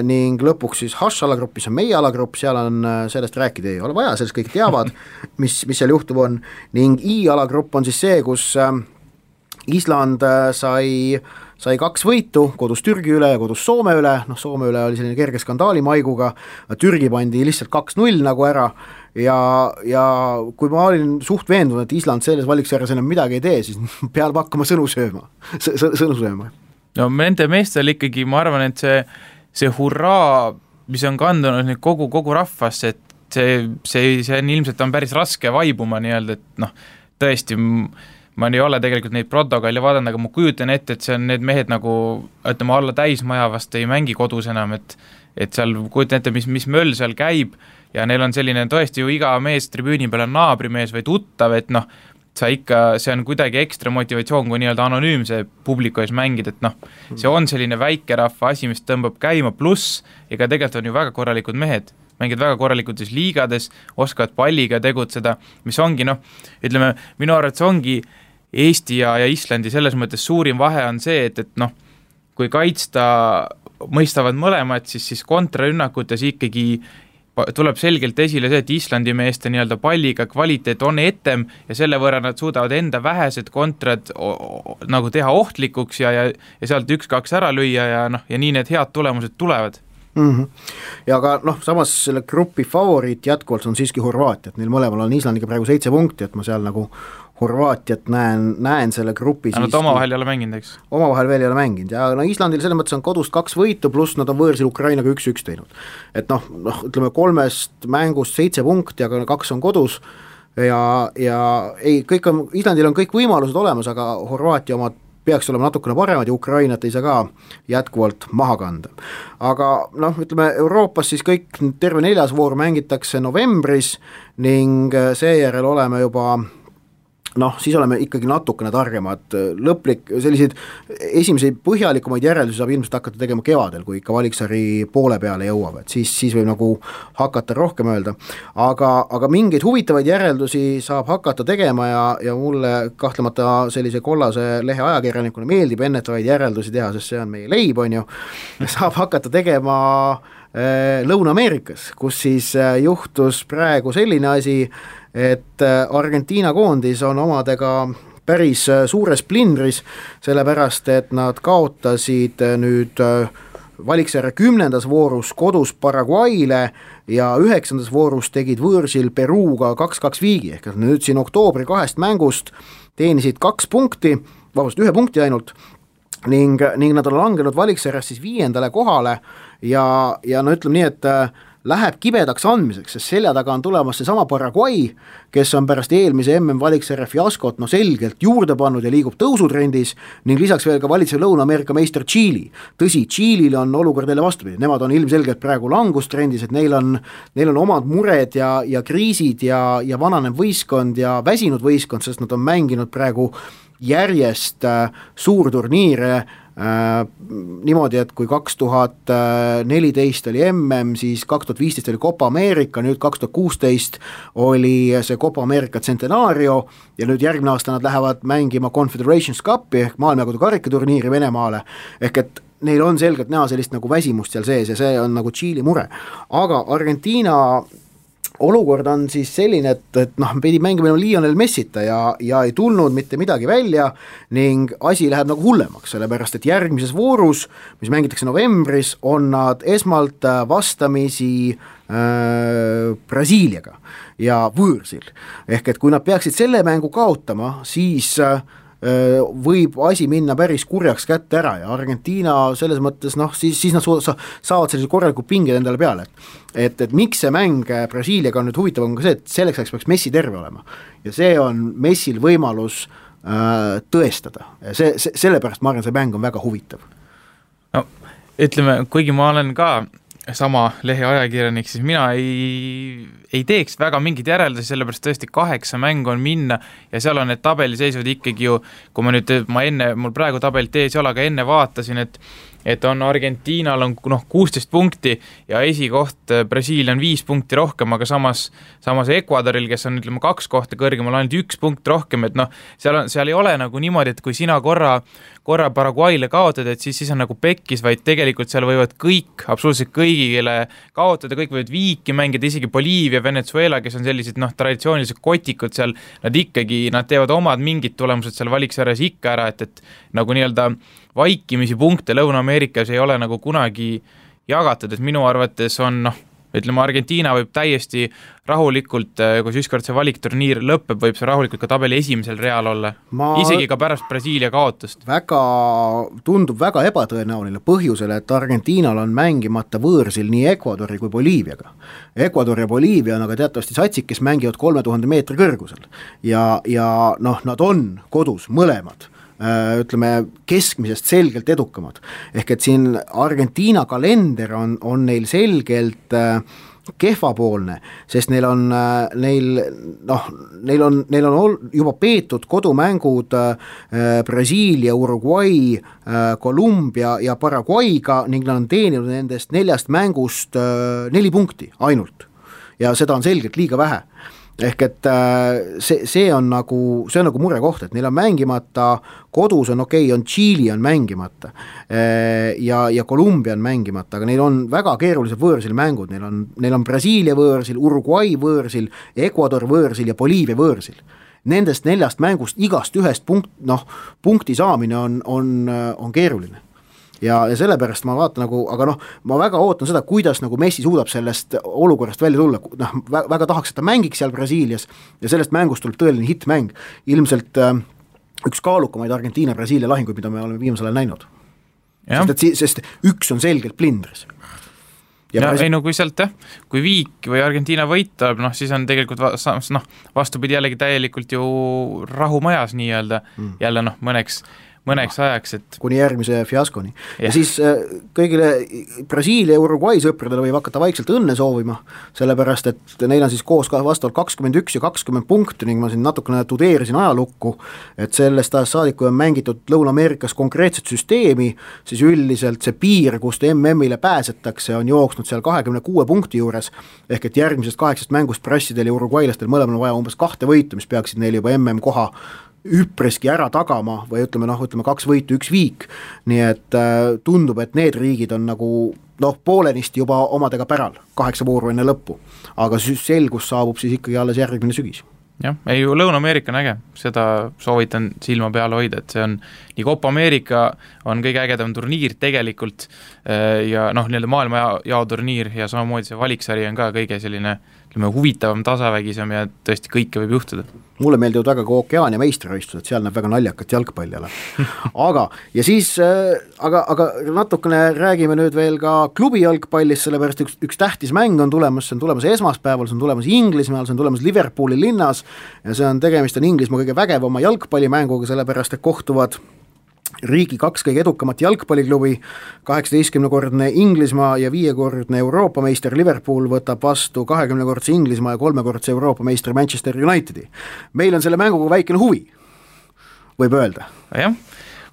ning lõpuks siis H-alagrupis on meie alagrupp, seal on sellest rääkida ei ole vaja, sellest kõik teavad, mis seal juhtub on, ning I-alagrupp on siis see, kus Island sai 2 võitu, kodus Türgi üle ja kodus Soome üle, Soome üle oli selline kerge skandaali maiguga, Türgi pandi lihtsalt 2-0 nagu ära ja kui ma olin suht veendunud, et Island selles valiksarjas enam midagi ei tee, siis peab hakkama sõnu sööma. Nende meestel ikkagi, ma arvan, et see hurraa, mis on kandunud nüüd kogu rahvasse, et see on ilmselt on päris raske vaibuma nii-öelda, et tõesti, ma ei ole tegelikult neid protokolle vaadanud, aga ma kujutan ette, et see on need mehed nagu, ütleme, alla täismaja vast ei mängi kodus enam, et seal kujutan ette, mis möll seal käib ja neil on selline tõesti ju iga mees tribüüni peal on naabrimees või tuttav, et see on kuidagi ekstra motivatsioon, kui nii-öelda anonüümse publiku ees mängida, et see on selline väikerahva asi, mis tõmbab käima, pluss ega tegelikult on ju väga korralikud mehed, mängid väga korralikult liigades, oskavad palliga tegutseda, mis ongi, ütleme, minu arvates ongi Eesti ja Islandi selles mõttes suurim vahe on see, et kui kaitsta mõistavad mõlemad, siis kontrarünnakutes ikkagi tuleb selgelt esile see, et Islandi meeste nii-öelda palliga kvaliteet on etem ja selle võrra nad suudavad enda vähesed kontrad nagu teha ohtlikuks ja sealt 1-2 ära lüüa ja nii need head tulemused tulevad. Ja ka samas selle grupi favoriit jätkuvalt on siiski Horvaatia, et neil mõlemal on Islandiga praegu 7 punkti, et ma seal nagu Horvaatiat näen selle grupi siiski. Nad omavahel ei ole mänginud, eks? Omavahel veel ei ole mänginud ja Islandil selles mõttes on kodust 2 võitu, pluss nad on võõrsil Ukrainaga 1-1 teinud. Et ütleme 3 mängust 7 punkti, aga 2 on kodus ja kõik on, Islandil on kõik võimalused olemas, aga Horvaatia omad peaks olema natukene paremad ja Ukrainat ei saa ka jätkuvalt maha kanda. Aga ütleme Euroopas siis kõik terve 4. voor mängitakse novembris ning seejärel oleme juba siis oleme ikkagi natukene targemad, selliseid esimesi põhjalikumaid järeldusi saab ilmselt hakata tegema kevadel, kui ikka valiksari poole peale jõuab, et siis võib nagu hakata rohkem öelda, aga mingeid huvitavaid järeldusi saab hakata tegema ja mulle kahtlemata sellise kollase lehe ajakirjanikuna meeldib ennetavaid järeldusi teha, sest see on meie leib, on ju, saab hakata tegema Lõuna-Ameerikas, kus siis juhtus praegu selline asi, et Argentiina koondis on omadega päris suures plindris, sellepärast et nad kaotasid nüüd valiksarja 10. voorus kodus Paraguayle ja 9. voorus tegid võõrsil Peruga 2-2 viigi, ehk nüüd siin oktoobri 2 mängust teenisid 2 punkti, vabandust, 1 punkti ainult, ning nad on langenud valiksarjas siis 5. kohale ja ütleme nii, et läheb kibedaks andmiseks, sest selja taga on tulemas see sama Paraguay, kes on pärast eelmise MM-valiksarja fiaskot selgelt juurde pannud ja liigub tõusutrendis ning lisaks veel ka valitsev Lõuna-Ameerika meister Tšiili. Tõsi, Tšiilil on olukord jälle vastupidi, nemad on ilmselgelt praegu langustrendis, et neil on omad mured ja kriisid ja vananev võistkond ja väsinud võistkond, sest nad on mänginud praegu järjest suurturniire niimoodi, et kui 2014 oli MM, siis 2015 oli Copa America, nüüd 2016 oli see Copa America Centenario ja nüüd järgmine aasta nad lähevad mängima Confederations Cupi ehk maailmajagude karikaturniiri Venemaale, ehk et neil on selgelt näha sellist nagu väsimust seal sees ja see on nagu Tšiili mure, aga Argentiina olukord on siis selline, et pidi mängima Lionel Messita ja ei tulnud mitte midagi välja ning asi läheb nagu hullemaks, sellepärast et järgmises voorus, mis mängitakse novembris, on nad esmalt vastamisi Brasiiliaga ja võõrsil. Ehk et kui nad peaksid selle mängu kaotama, siis võib asi minna päris kurjaks kätte ära ja Argentiina selles mõttes, siis nad saavad sellise korraliku pinged endale peale, et miks see mäng Brasiiliaga on nüüd huvitav, on ka see, et selleks ajaks peaks Messi terve olema ja see on Messil võimalus tõestada ja sellepärast ma arvan, see mäng on väga huvitav. No ütleme, kuigi ma olen ka sama lehe ajakirjanik, siis mina ei teeks väga mingid järeldusi, sellepärast tõesti 8 mängu on minna ja seal on need tabeliseisud ikkagi ju, kui mul praegu tabelit ees ei ole, aga enne vaatasin, et on Argentiinal on 16 punkti ja esikoht Brasiilia on 5 punkti rohkem, aga samas Ecuadoril, kes on 2 kohta kõrgemal, ainult 1 punkt rohkem, et seal ei ole nagu niimoodi, et kui sina korra Paraguayle kaotad, et siis on nagu pekkis, vaid tegelikult seal võivad kõik, absoluutselt kõigile kaotada, kõik võivad viiki mängida, isegi Boliivia, Venezuela, kes on sellised traditsioonilised kotikud seal, nad teevad omad mingid tulemused seal valiksarjas ikka ära, et nagu nii-öelda vaikimisi punkte Lõuna-Ameerikas ei ole nagu kunagi jagatud, et minu arvates on ütleme, Argentiina võib täiesti rahulikult, kui ükskord see valikturniir lõpeb, võib see rahulikult ka tabeli esimesel real olla, isegi ka pärast Brasiilia kaotust. Tundub väga ebatõenäoline põhjusel, et Argentiinal on mängimata võõrsil nii Ecuadori kui Boliiviaga. Ecuador ja Boliivia on aga teatavasti satsid, kes mängivad 3000 meetri kõrgusel ja nad on kodus mõlemad, ütleme keskmisest selgelt edukamad, ehk et siin Argentiina kalender on neil selgelt kehvapoolne, sest neil on juba peetud kodumängud Brasiilia, Uruguay, Kolumbia ja Paraguayga ning nad on teeninud nendest 4 mängust 4 punkti ainult ja seda on selgelt liiga vähe. ehk et see on nagu murekoht, et neil on mängimata, kodus on okei, on Tšiili on mängimata ja Kolumbia on mängimata, aga neil on väga keerulised võõrsil mängud, neil on Brasiilia võõrsil, Uruguay võõrsil, Ecuador võõrsil ja Boliivia võõrsil. Nendest 4 mängust igast ühest punkti saamine on keeruline. Ja sellepärast ma vaatan aga ma väga ootan seda, kuidas Messi suudab sellest olukorrast välja tulla, väga tahaks, et ta mängiks seal Brasiilias ja sellest mängust tuleb tõeline hittmäng, ilmselt üks kaalukamaid Argentiina-Brasiilia lahinguid, mida me oleme viimasel ajal näinud. Sest üks on selgelt plindris. Kui sealt kui Viik või Argentiina võitab, siis on tegelikult vastupidi jällegi täielikult ju rahumajas nii-öelda, jälle mõneks ajaks, et kuni järgmise fiaskoni. Ja siis kõigile Brasiilia ja Uruguay sõpradele võib hakata vaikselt õnne soovima, sellepärast, et neil on siis koos vastavalt 21 ja 20 punkti ning ma siin natukene tudeerisin ajalukku, et sellest ajast saadik, kui on mängitud Lõuna-Ameerikas konkreetset süsteemi, siis üldiselt see piir, kust MM-ile pääsetakse, on jooksnud seal 26 punkti juures, ehk et järgmisest 8 mängust prassidel ja uruguaylastel mõlemal vaja umbes 2 võitu, mis peaksid neil juba MM koha üpreski ära tagama või ütleme 2 võitu, 1 viik, nii et tundub, et need riigid on poolenisti juba omadega päral 8 vooru enne lõppu, aga selgus saabub siis ikkagi alles järgmine sügis. Jah, ei Lõuna-Ameerika on äge, seda soovitan silma peale hoida, et see on nii Copa Ameerika on kõige ägedam turniir tegelikult ja nii-öelda maailma jaoturniir ja samamoodi see valiksari on ka kõige selline huvitavam, tasavägisem ja tõesti kõike võib juhtuda. Mulle meeldivad väga ka Okeaania meistrivõistlused, seal näeb väga naljakat jalgpalli ala. Ja siis, aga natukene räägime nüüd veel ka klubi jalgpallist, sellepärast üks tähtis mäng on tulemas, see on tulemas esmaspäeval, see on tulemas Inglismaal, see on tulemas Liverpooli linnas ja see on tegemist Inglismaa kõige vägevama jalgpallimänguga, sellepärast, et kohtuvad riigi 2 kõige edukamat jalgpalliklubi, 18-kordne Inglismaa ja 5-kordne Euroopa meister Liverpool võtab vastu 20-kordse Inglismaa ja 3-kordse Euroopa meister Manchester Unitedi. Meil on selle mänguga väikene huvi, võib öelda. Jah,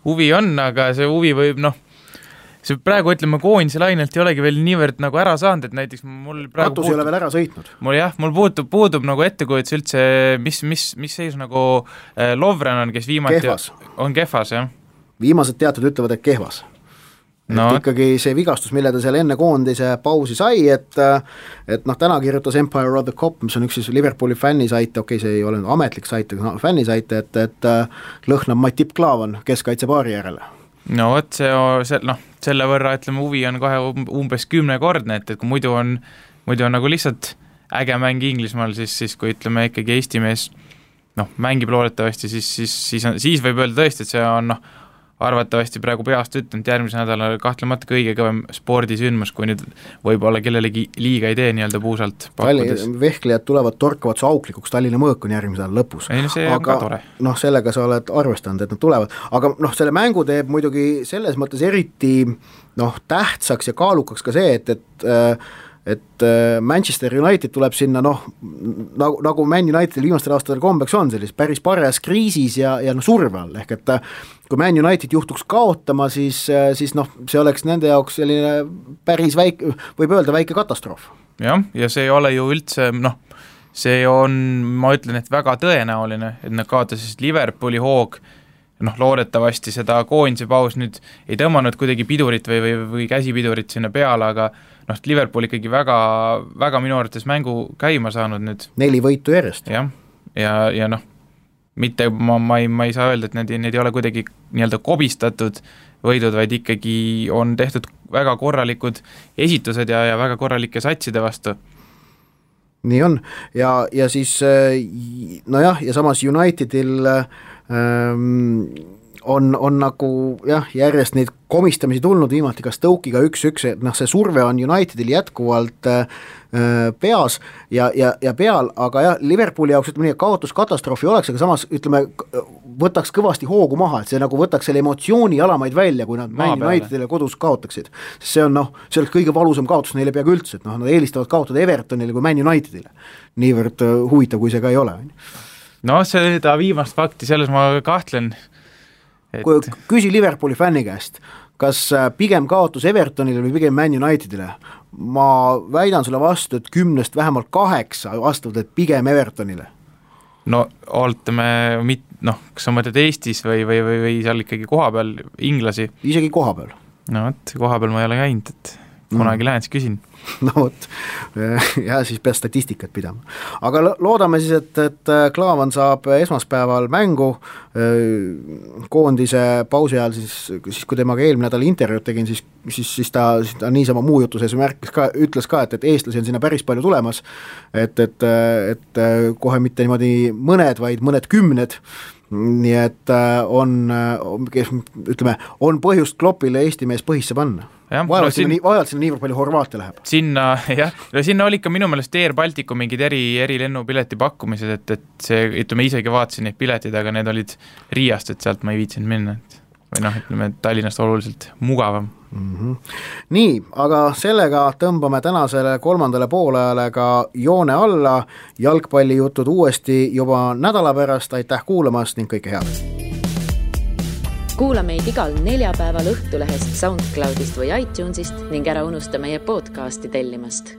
huvi on, aga see huvi võib, see praegu ütleme koondise lainelt ei olegi veel niivõrd ära saanud, et näiteks mul praegu Katus ei ole veel ära sõitnud. Mul puudub ettekujutus üldse, mis seis Lovren on, kes viimati on kehvas, jah. Viimased teatud ütlevad, et kehvas. Ikkagi see vigastus, mille ta seal enne koondise pausi sai, et täna kirjutas Empire of the Cop, mis on üks siis Liverpooli fännisait, see ei ole ametlik sait, aga fännisait, et lõhnab Matip Klaavan keskkaitsepaari järele. Selle võrra, ütleme, huvi on kohe umbes 10-kordne, et kui muidu on lihtsalt äge mäng Inglismaal, siis kui ütleme ikkagi Eesti mees mängib loodetavasti, siis võib öelda tõesti, et see on arvatavasti praegu peast ütlenud järgmise nädala kahtlemata kõige kõvem spordisündmus, kui nüüd võib-olla kellelegi liiga ei tee nii-öelda puusalt pakkudes. Vehklejad tulevad torkavad su auklikuks, Tallinna mõõk on järgmise nädala lõpus. See on ka tore. Sellega sa oled arvestanud, et nad tulevad, aga selle mängu teeb muidugi selles mõttes eriti tähtsaks ja kaalukaks ka see, et Manchester United tuleb sinna nagu Man Unitedil viimastel aastatel kombeks on sellis päris paras kriisis ja surve all, ehk et kui Man United juhtuks kaotama, siis see oleks nende jaoks selline päris väike, võib öelda väike katastroof. Jah, ja see ei ole ju üldse, see on, ma ütlen, et väga tõenäoline, et nad kaotasid Liverpooli hoog, loodetavasti seda koondise paus nüüd ei tõmmanud kuidagi pidurit või käsipidurit sinna peale, aga Liverpool ikkagi väga, väga minu arvates mängu käima saanud nüüd. 4 võitu järjest. Jah, ja mitte, ma ei saa öelda, et need ei ole kuidagi nii-öelda kobistatud võidud, vaid ikkagi on tehtud väga korralikud esitused ja väga korralike satside vastu. Nii on, ja siis ja samas Unitedil on nagu järjest neid komistamisi tulnud viimati ka Stoke'iga 1-1, et see surve on Unitedil jätkuvalt peas ja peal, aga Liverpooli jaoks ütleme nii, kaotuskatastroofi oleks, aga samas ütleme, võtaks kõvasti hoogu maha, et see nagu võtaks selle emotsiooni alamaid välja, kui nad Man Unitedile kodus kaotaksid. See on see oleks kõige valusam kaotus neile peaaegu üldse, et nad eelistavad kaotada Evertonile kui Man Unitedile. Niivõrd huvitav, kui see ka ei ole. Seda viimast fakti, selles ma kahtlen. Küsi Liverpooli fänni käest, kas pigem kaotus Evertonile või pigem Man Unitedile? Ma väidan sulle vastu, et 10 vähemalt 8 vastavad, et pigem Evertonile. No ootame, kas sa mõtled Eestis või seal ikkagi kohapeal inglasi? Isegi kohapeal. No võt, kohapeal ma ei ole käinud, et kunagi lähen, siis küsin. No vot, ja siis pead statistikat pidama. Aga loodame siis, et Klaavan saab esmaspäeval mängu koondise pausi ajal, siis kui temaga eelmine nädal intervjuud tegin, siis ta niisama muu jutu sees ütles ka, et eestlasi on sinna päris palju tulemas, et kohe mitte niimoodi mõned, vaid mõned 10, nii et on põhjust Kloppile Eesti mees põhisse panna. Vajalt sinna niivõrd palju Horvaatia läheb. Sinna oli ka minu meelest Air Balticu mingid eri lennupileti pakkumised, et see, ütleme, isegi vaatasin neid piletid, aga need olid Riiast, et sealt ma ei viitsinud minna. Või Tallinnast oluliselt mugavam. Nii, aga sellega tõmbame tänasele 3. poolajale ka joone alla. Jalgpallijutud uuesti juba nädala pärast, aitäh kuulamast ning kõike head! Kuula meid igal neljapäeval Õhtulehest, SoundCloudist või iTunesist ning ära unusta meie podcasti tellimast.